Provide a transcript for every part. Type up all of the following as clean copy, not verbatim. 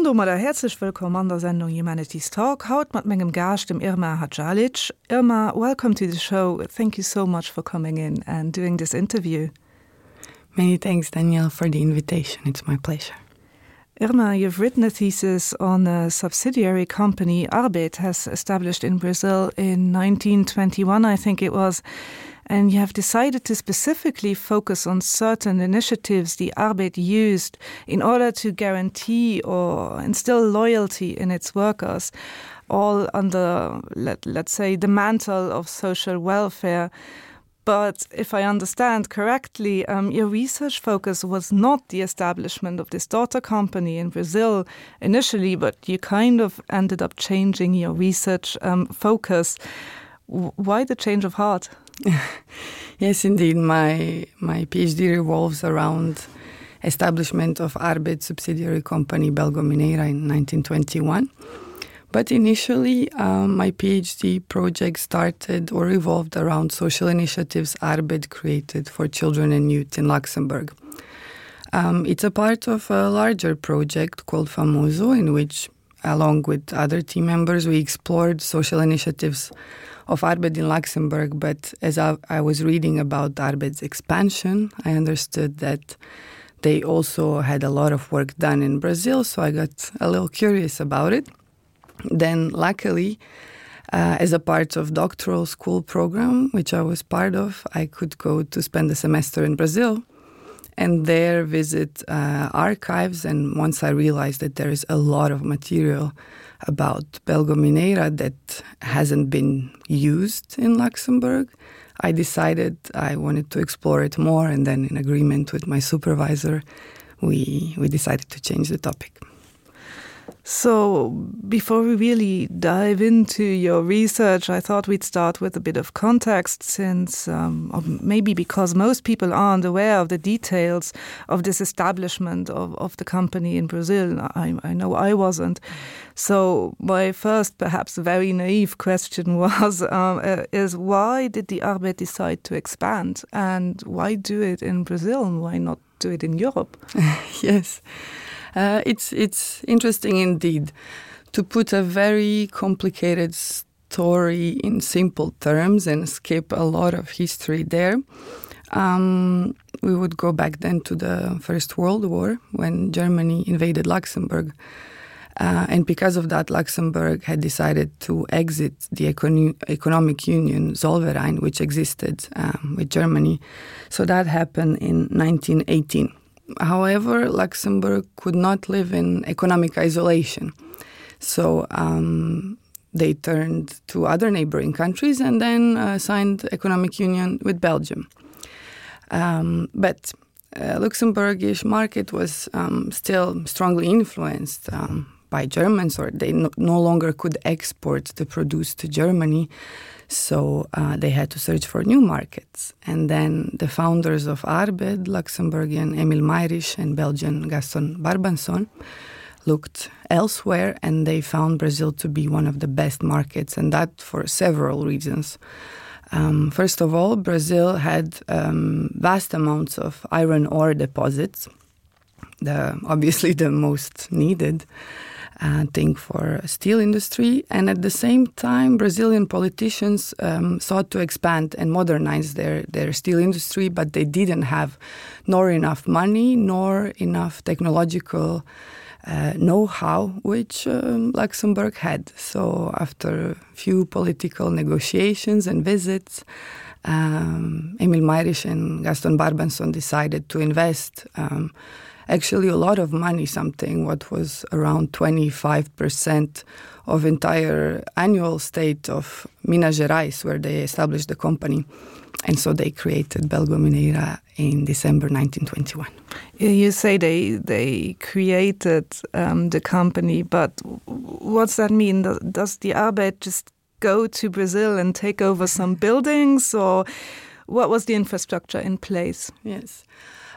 domadder häerzlech wëllkomm an der Sendung Humanities Talk, haut mat mengem Gaascht, dem Irma Hadžalić. Irma, welcome to the show. Thank you so much for coming in and doing this interview. Many thanks, Danielle, for the invitation. It's my pleasure. Irma, you've written a thesis on a subsidiary company Arbed has established in Brazil in 1921, I think it was, and you have decided to specifically focus on certain initiatives the Arbed used in order to guarantee or instill loyalty in its workers, all under, let, let's say, the mantle of social welfare. But if I understand correctly, um, your research focus was not the establishment of this daughter company in Brazil initially, but you kind of ended up changing your research um, focus. Why the change of heart? yes, indeed. My, my PhD revolves around establishment of Arbed subsidiary company Belgo Mineira in 1921. But initially, um, my PhD project started or revolved around social initiatives Arbed created for children and youth in Luxembourg. Um, it's a part of a larger project called Famoso, in which, along with other team members, we explored social initiatives of Arbed in Luxembourg. But as I, I was reading about Arbed's expansion, I understood that they also had a lot of work done in Brazil, so I got a little curious about it. Then luckily, uh, as a part of doctoral school program, which I was part of, I could go to spend a semester in Brazil and there visit uh, archives. And once I realized that there is a lot of material about Belgo Mineira that hasn't been used in Luxembourg, I decided I wanted to explore it more. And then in agreement with my supervisor, we, we decided to change the topic. So before we really dive into your research, I thought we'd start with a bit of context since um, or maybe because most people aren't aware of the details of this establishment of, of the company in Brazil. I, I know I wasn't. So my first perhaps very naive question was um, uh, is why did the Arbed decide to expand and why do it in Brazil and why not do it in Europe? yes. Uh, it's, it's interesting indeed to put a very complicated story in simple terms and skip a lot of history there. Um, we would go back then to the First World War when Germany invaded Luxembourg. Uh, and because of that, Luxembourg had decided to exit the econ economic union Zollverein, which existed um, with Germany. So that happened in 1918. However, Luxembourg could not live in economic isolation. So um, they turned to other neighboring countries and then uh, signed economic union with Belgium. Um, but uh, Luxembourgish market was um, still strongly influenced um, by Germans or they no, no longer could export the produce to Germany. So uh, they had to search for new markets. And then the founders of Arbed, Luxembourgian Emil Mayrisch and Belgian Gaston Barbanson looked elsewhere and they found Brazil to be one of the best markets and that for several reasons. Um, first of all, Brazil had um, vast amounts of iron ore deposits, the, obviously the most needed uh, thing for steel industry. And at the same time, Brazilian politicians um, sought to expand and modernize their, their steel industry, but they didn't have nor enough money nor enough technological uh, know-how which um, Luxembourg had. So after a few political negotiations and visits, um, Emil Mayrisch and Gaston Barbanson decided to invest um, actually a lot of money, something what was around 25% of entire annual state of Minas Gerais, where they established the company. And so they created Belgo Mineira in December 1921. You say they, they created um, the company, but what's that mean? Does the Arbeit just go to Brazil and take over some buildings or what was the infrastructure in place? Yes.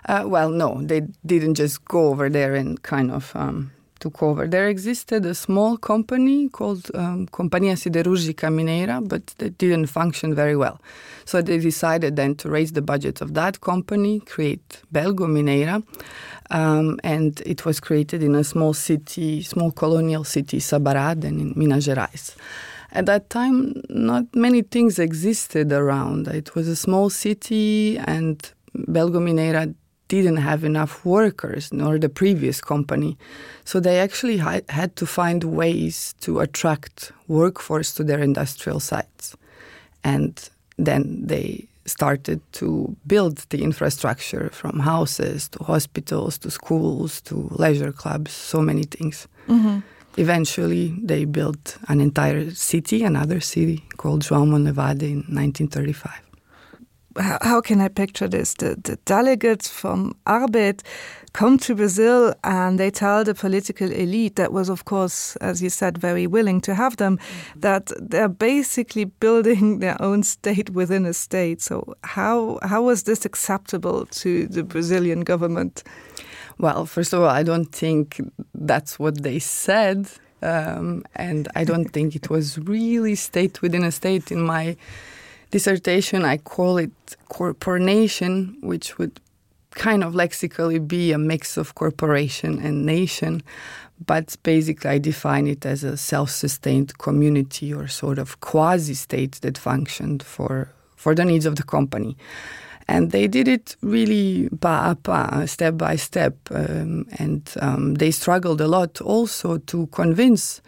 Uh, well, no, they didn't just go over there and kind of um, took over. There existed a small company called um, Companhia Siderúrgica Mineira, but that didn't function very well. So they decided then to raise the budget of that company, create Belgo Mineira, um, and it was created in a small city, small colonial city, Sabará, then in Minas Gerais. At that time, not many things existed around. It was a small city and Belgo Mineira didn't have enough workers nor the previous company. So they actually had to find ways to attract workforce to their industrial sites. And then they started to build the infrastructure from houses to hospitals to schools to leisure clubs, so many things. Mm -hmm. Eventually, they built an entire city, another city called João Monlevade in 1935 how can I picture this? The, the delegates from Arbit come to Brazil and they tell the political elite that was, of course, as you said, very willing to have them, mm -hmm. that they're basically building their own state within a state. So how, how was this acceptable to the Brazilian government? Well, first of all, I don't think that's what they said. Um, and I don't think it was really state within a state in my dissertation I call it corporation, which would kind of lexically be a mix of corporation and nation, but basically I define it as a self-sustained community or sort of quasi-state that functioned for, for the needs of the company. And they did it really pa a pa, step by step, um, and um, they struggled a lot also to convince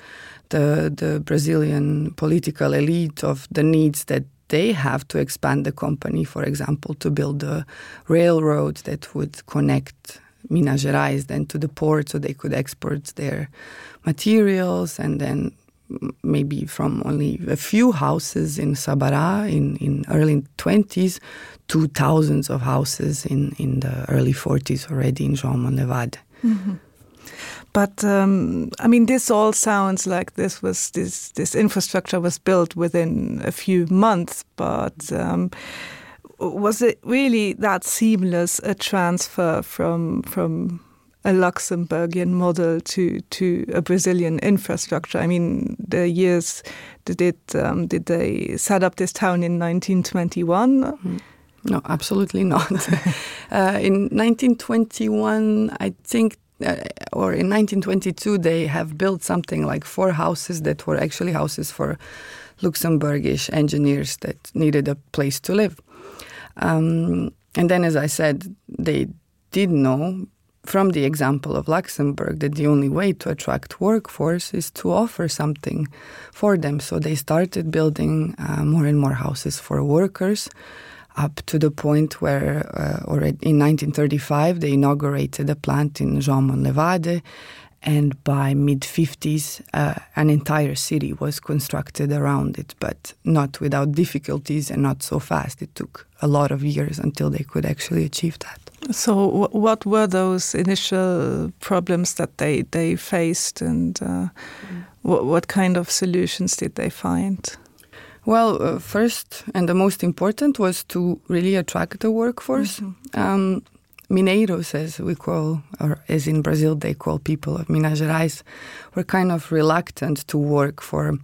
the, the Brazilian political elite of the needs that they have to expand the company, for example, to build a railroad that would connect Minas Gerais then to the port so they could export their materials and then maybe from only a few houses in Sabará in, in early 20s to thousands of houses in, in the early 40s already in João Monlevade. Mm -hmm. But um, I mean, this all sounds like this was this this infrastructure was built within a few months, but um, was it really that seamless a transfer from from a Luxembourgian model to to a Brazilian infrastructure? I mean, the years did it um, did they set up this town in 1921? Mm. No, absolutely not. uh, in 1921, I think uh, or in 1922 they have built something like four houses that were actually houses for Luxembourgish engineers that needed a place to live. Um, and then as I said, they did know from the example of Luxembourg that the only way to attract workforce is to offer something for them. So they started building uh, more and more houses for workers up to the point where uh, already in 1935 they inaugurated a plant in Jean Monlevade and by mid-50s uh, an entire city was constructed around it, but not without difficulties and not so fast. It took a lot of years until they could actually achieve that. So what were those initial problems that they, they faced and uh, mm. what, what kind of solutions did they find? Well, uh, first and the most important was to really attract the workforce. Mm -hmm. um, Mineiros, as we call, or as in Brazil they call people of Minas Gerais, were kind of reluctant to work for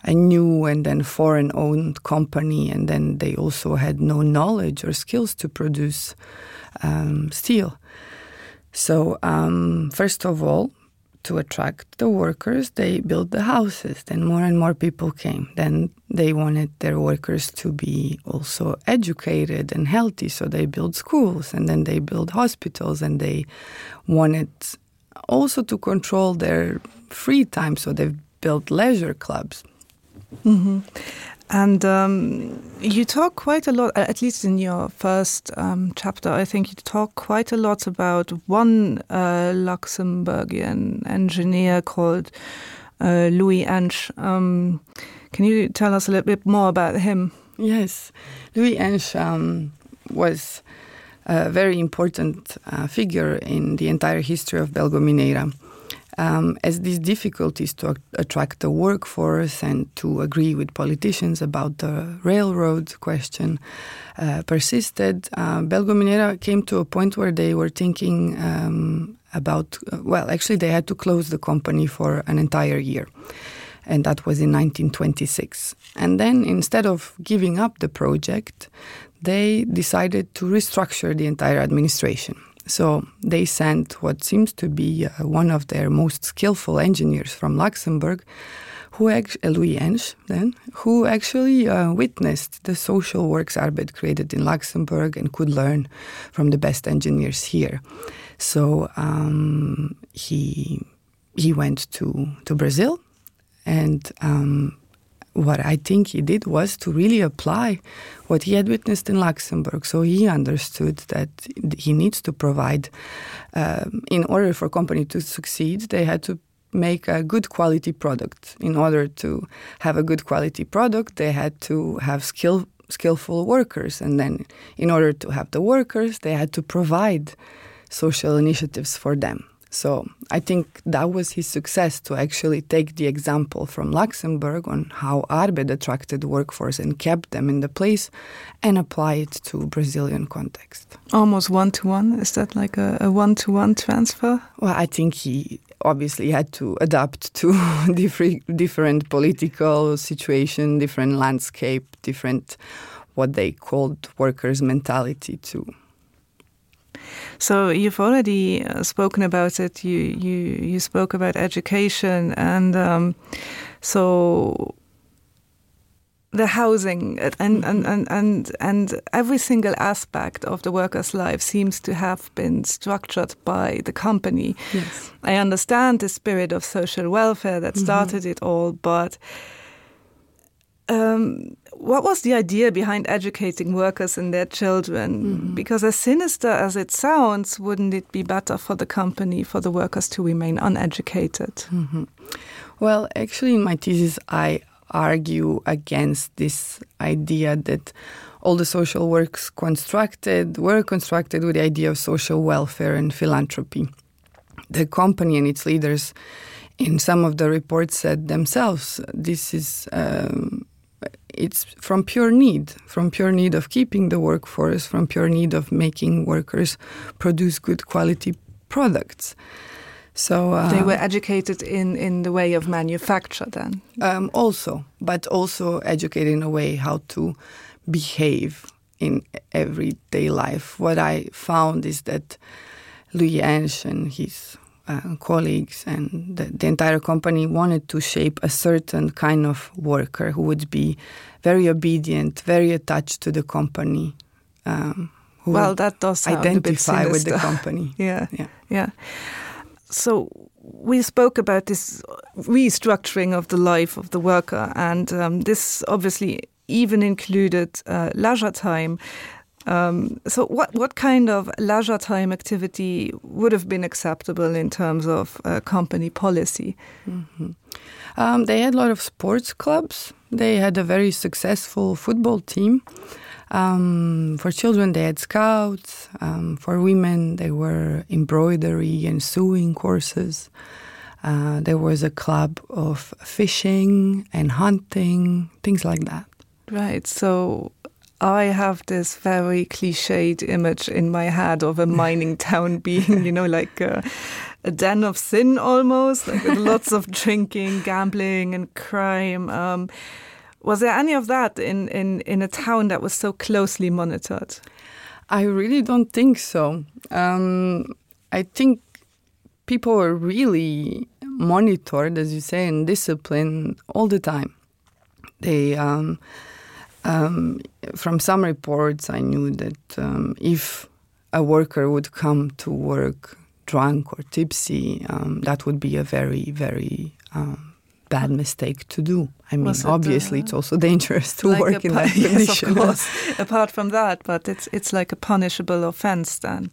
a new and then foreign-owned company, and then they also had no knowledge or skills to produce um, steel. So, um, first of all, to attract the workers, they built the houses. Then more and more people came. Then they wanted their workers to be also educated and healthy, so they built schools and then they built hospitals and they wanted also to control their free time, so they built leisure clubs. Mm -hmm. And um, you talk quite a lot, at least in your first um, chapter, I think you talk quite a lot about one uh, Luxembourgian engineer called uh, Louis Ensch. Um, can you tell us a little bit more about him? Yes, Louis Ensch um, was a very important uh, figure in the entire history of Belgo Mineira um, as these difficulties to attract the workforce and to agree with politicians about the railroad question uh, persisted, uh, Belgo Minera came to a point where they were thinking um, about uh, well actually they had to close the company for an entire year and that was in 1926 and then instead of giving up the project they decided to restructure the entire administration so they sent what seems to be uh, one of their most skillful engineers from Luxembourg who uh, Louis Ensch then who actually uh, witnessed the social works Arbeit created in Luxembourg and could learn from the best engineers here. So um, he he went to to Brazil and um, what I think he did was to really apply what he had witnessed in Luxembourg. So he understood that he needs to provide um, in order for company to succeed, they had to make a good quality product. In order to have a good quality product, they had to have skill skillful workers and then in order to have the workers, they had to provide social initiatives for them. So I think that was his success to actually take the example from Luxembourg on how Arbed attracted workforce and kept them in the place and apply it to Brazilian context. Almost one to one is that like a one to one transfer? Well, I think he obviously had to adapt to different different political situation, different landscape, different what they called workers mentality too. So you've already uh, spoken about it you you you spoke about education and um, so the housing and, and, and, and, and every single aspect of the worker's life seems to have been structured by the company. Yes. I understand the spirit of social welfare that mm-hmm. started mm -hmm. it all, but um, what was the idea behind educating workers and their children? Mm -hmm. Because as sinister as it sounds, wouldn't it be better for the company for the workers to remain uneducated? Mm -hmm. Well, actually in my thesis I argue against this idea that all the social works constructed were constructed with the idea of social welfare and philanthropy. The company and its leaders in some of the reports said themselves this is um, it's from pure need, from pure need of keeping the workforce, from pure need of making workers produce good quality products. So uh, they were educated in in the way of manufacture then um, also, but also educated in a way how to behave in everyday life. What I found is that Louis Ensch and his uh, colleagues and the, the entire company wanted to shape a certain kind of worker who would be very obedient, very attached to the company. Um, who well, that does identify with the company. yeah, yeah, yeah. So we spoke about this restructuring of the life of the worker, and um, this obviously even included uh, leisure time. Um, so what, what kind of leisure time activity would have been acceptable in terms of uh, company policy? Mm -hmm. um, they had a lot of sports clubs. They had a very successful football team. Um, for children, they had scouts. Um, for women, they were embroidery and sewing courses. Uh, there was a club of fishing and hunting, things like that. Right, so I have this very cliched image in my head of a mining town being, you know, like a, a den of sin almost, like with lots of drinking, gambling and crime. Um, was there any of that in, in, in a town that was so closely monitored? I really don't think so. Um, I think people were really monitored, as you say, and disciplined all the time. They um, um, from some reports, I knew that um, if a worker would come to work drunk or tipsy, um, that would be a very, very um, bad mistake to do. I mean, it, obviously, uh, it's also dangerous to like work in that condition. Yes, Apart from that, but it's, it's like a punishable offense then.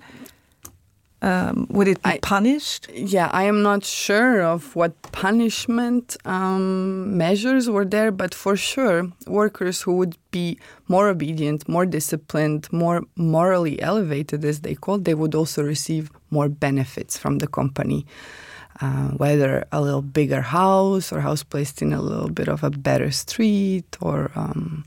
Um, would it be I, punished? Yeah, I am not sure of what punishment um, measures were there, but for sure, workers who would be more obedient, more disciplined, more morally elevated, as they called, they would also receive more benefits from the company. Uh, whether a little bigger house or house placed in a little bit of a better street or um,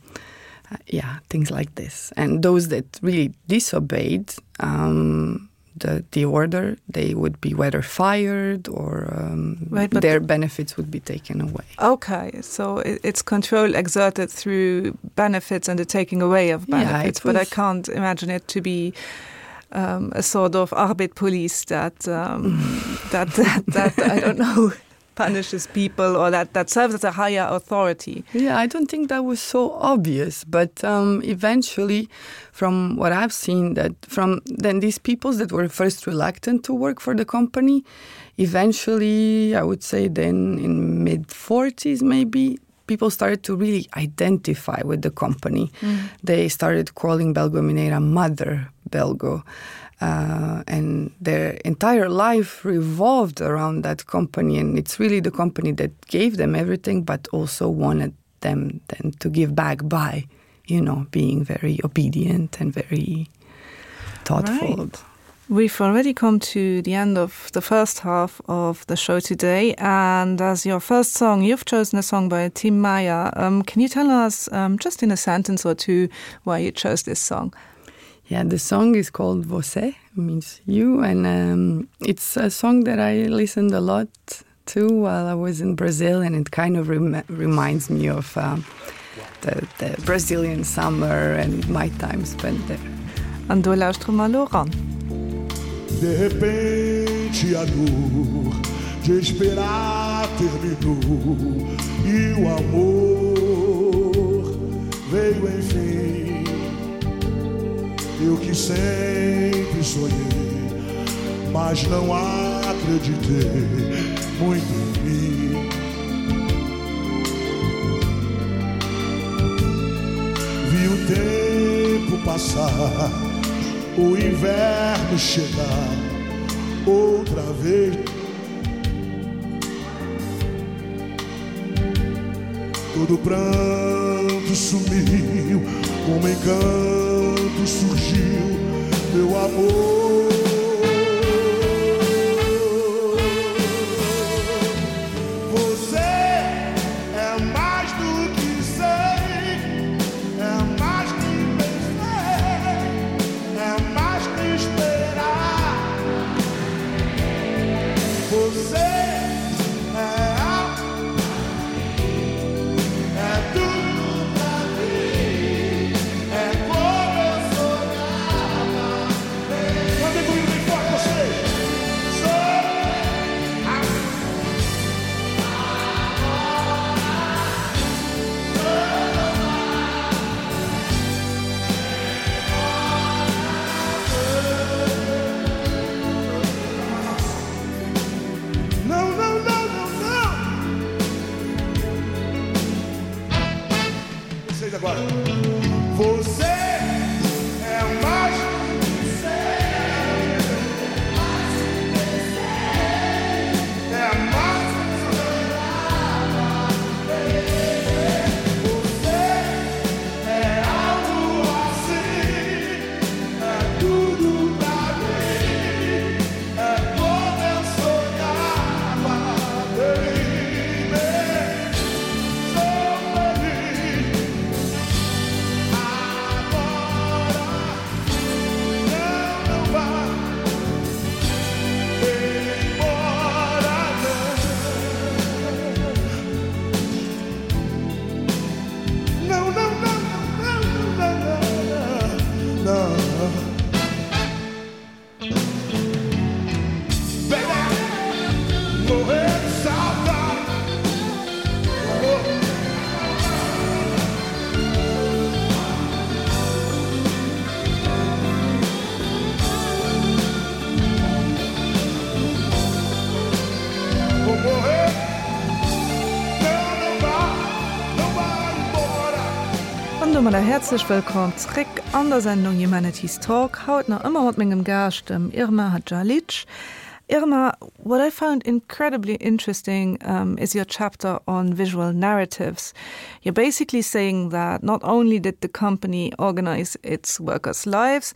uh, yeah, things like this. And those that really disobeyed, um, the, the order, they would be whether fired or um, right, their benefits would be taken away. Okay, so it, it's control exerted through benefits and the taking away of benefits, yeah, but I can't imagine it to be um, a sort of arbit police that, um, that, that, that I don't know punishes people or that that serves as a higher authority. Yeah, I don't think that was so obvious, but um, eventually from what I've seen that from then these peoples that were first reluctant to work for the company, eventually I would say then in mid 40s maybe people started to really identify with the company. Mm. They started calling Belgo Mineira mother Belgo. Uh, and their entire life revolved around that company and it's really the company that gave them everything but also wanted them then to give back by you know being very obedient and very thoughtful right. We've already come to the end of the first half of the show today and as your first song you've chosen a song by Tim Meyer. Um, can you tell us um, just in a sentence or two why you chose this song? Yeah, the song is called Você means you and um, it's a song that I listened a lot to while I was in Brazil and it kind of rem reminds me of um, the, the Brazilian summer and my time spent there. An do lauschtere mer elo eran. De repente a dor de esperar terminou e o amor veio enfim. Eu que sempre sonhei, mas não acreditei muito em mim. Vi o tempo passar, o inverno chegar outra vez. Todo pranto sumiu, como encanto surgiu meu amor. An domadder häerzlech wëllkomm zréck an der Sendung Humanities Talk, haut nach ëmmer mat mengem Gaascht, dem Irma Hadžalić. Irma, what I found incredibly interesting um, is your chapter on visual narratives. You're basically saying that not only did the company organize its workers' lives,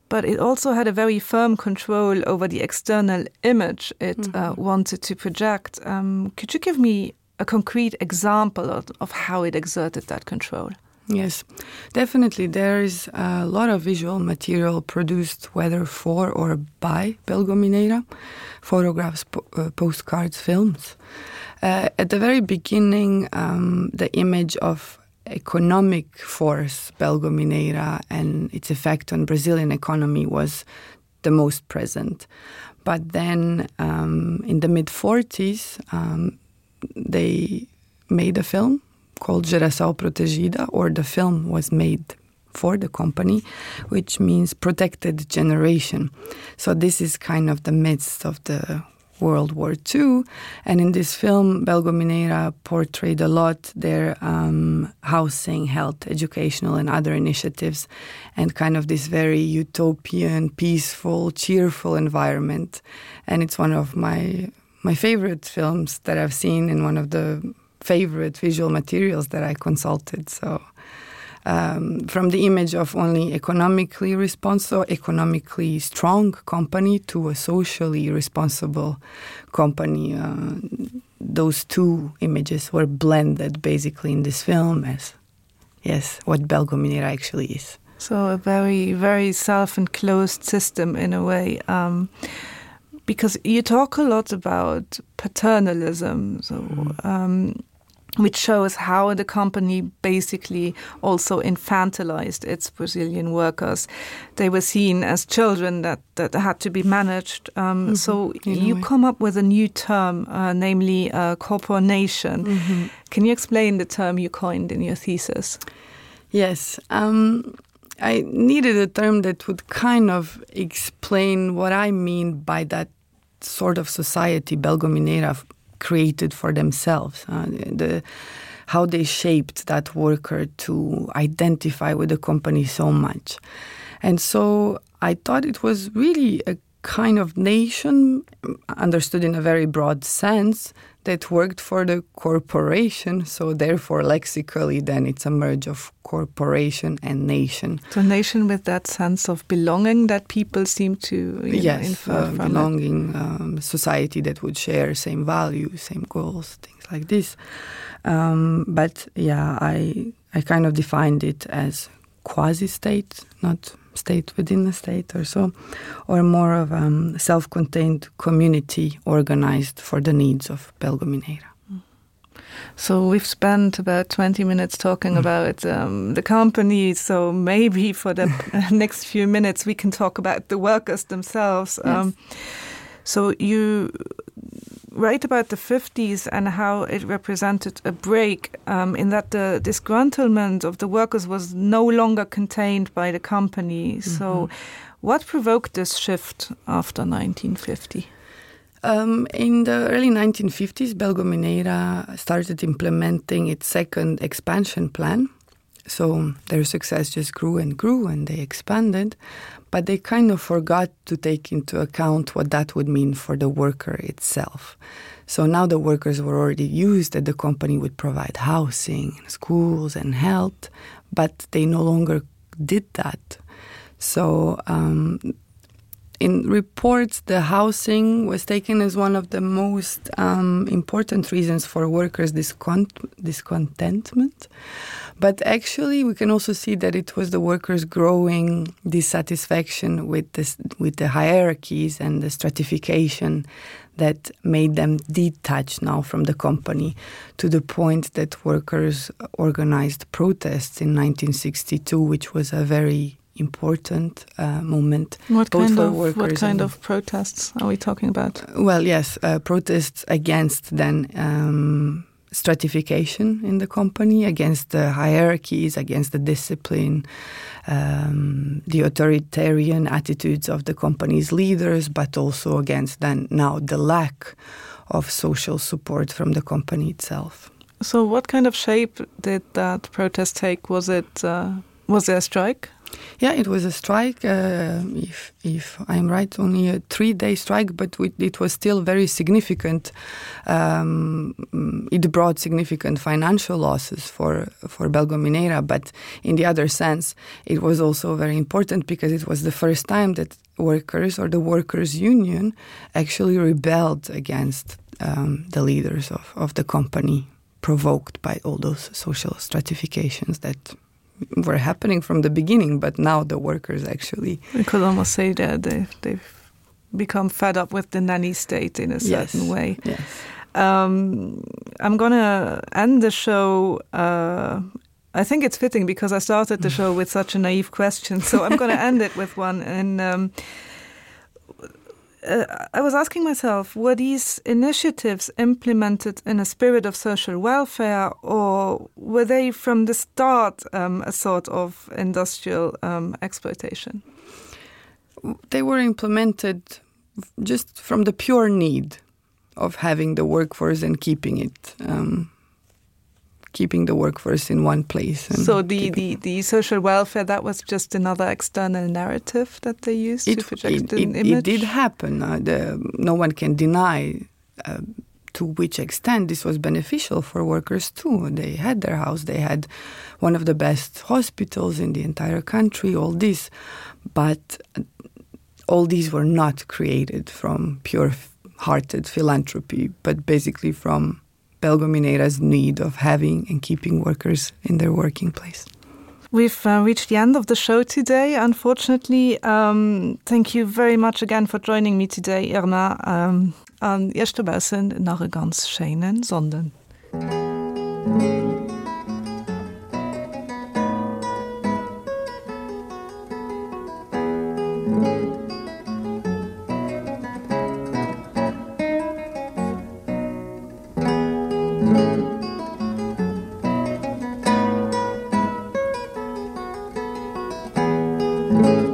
but it also had a very firm control over the external image it mm -hmm. uh, wanted to project. Um, could you give me a concrete example of, of how it exerted that control? Yes, definitely there is a lot of visual material produced whether for or by Belgomineira, photographs, po uh, postcards, films. Uh, at the very beginning, um, the image of economic force Belgomineira and its effect on Brazilian economy was the most present. But then um, in the mid 40s, um, they made a film called Geração Protegida, or the film was made for the company, which means protected generation. So this is kind of the midst of the World War II. And in this film, Belgo Mineira portrayed a lot their um, housing, health, educational and other initiatives and kind of this very utopian, peaceful, cheerful environment. And it's one of my my favorite films that I've seen and one of the favorite visual materials that I consulted. So um, from the image of only economically responsible, economically strong company to a socially responsible company, uh, those two images were blended basically in this film as yes, what Belgominera actually is. So a very, very self-enclosed system in a way. Um, because you talk a lot about paternalism, so mm. um, which shows how the company basically also infantilized its Brazilian workers. They were seen as children that, that had to be managed. Um, mm -hmm. So you come up with a new term, uh, namely uh, corporation. Mm -hmm. Can you explain the term you coined in your thesis? Yes. Um, I needed a term that would kind of explain what I mean by that sort of society Belgominera created for themselves, uh, the, how they shaped that worker to identify with the company so much. And so I thought it was really a kind of nation understood in a very broad sense that worked for the corporation so therefore lexically then it's a merge of corporation and nation so nation with that sense of belonging that people seem to you yes know, uh, belonging um, society that would share same values same goals things like this um, but yeah I I kind of defined it as quasi state not state within the state or so or more of a um, self-contained community organized for the needs of Belgomineira. So we've spent about 20 minutes talking mm. about um, the company, so maybe for the next few minutes we can talk about the workers themselves. Yes. Um, so you write about the 50s and how it represented a break um, in that the disgruntlement of the workers was no longer contained by the company. Mm -hmm. So what provoked this shift after 1950? Um, in the early 1950s, Belgomineira started implementing its second expansion plan. So their success just grew and grew and they expanded, but they kind of forgot to take into account what that would mean for the worker itself. So now the workers were already used that the company would provide housing, and schools and health, but they no longer did that. So um, in reports, the housing was taken as one of the most um, important reasons for workers' discont discontentment. But actually, we can also see that it was the workers' growing dissatisfaction with, this, with the hierarchies and the stratification that made them detach now from the company to the point that workers organized protests in 1962, which was a very important uh, moment what kind of what kind of protests are we talking about well yes uh, protests against then um, stratification in the company against the hierarchies against the discipline um, the authoritarian attitudes of the company's leaders but also against then now the lack of social support from the company itself so what kind of shape did that protest take was it uh, was there a strike Yeah, it was a strike uh, if, if I'm right only a three-day strike, but we, it was still very significant. Um, it brought significant financial losses for, for Belgominera, but in the other sense, it was also very important because it was the first time that workers or the workers' union actually rebelled against um, the leaders of, of the company provoked by all those social stratifications that were happening from the beginning, but now the workers actually We could almost say that they've, they've become fed up with the nanny state in a certain yes, way. Yes. Um, I'm gonna end the show uh, I think it's fitting because I started the show with such a naive question, so I'm gonna end it with one and um, uh, I was asking myself, were these initiatives implemented in a spirit of social welfare or were they from the start um, a sort of industrial um, exploitation? They were implemented just from the pure need of having the workforce and keeping it. Um, keeping the workforce in one place. And so the, the, the social welfare, that was just another external narrative that they used it, to project it, an it, image? It did happen. Uh, the, no one can deny uh, to which extent this was beneficial for workers too. They had their house, they had one of the best hospitals in the entire country, all this. But uh, all these were not created from pure-hearted philanthropy, but basically from Belgominera's need of having and keeping workers in their working place. We've uh, reached the end of the show today, unfortunately. Um, thank you very much again for joining me today, Irma. Um, an Iech dobaussen nach e ganz schéinen Sonnden. Thank you.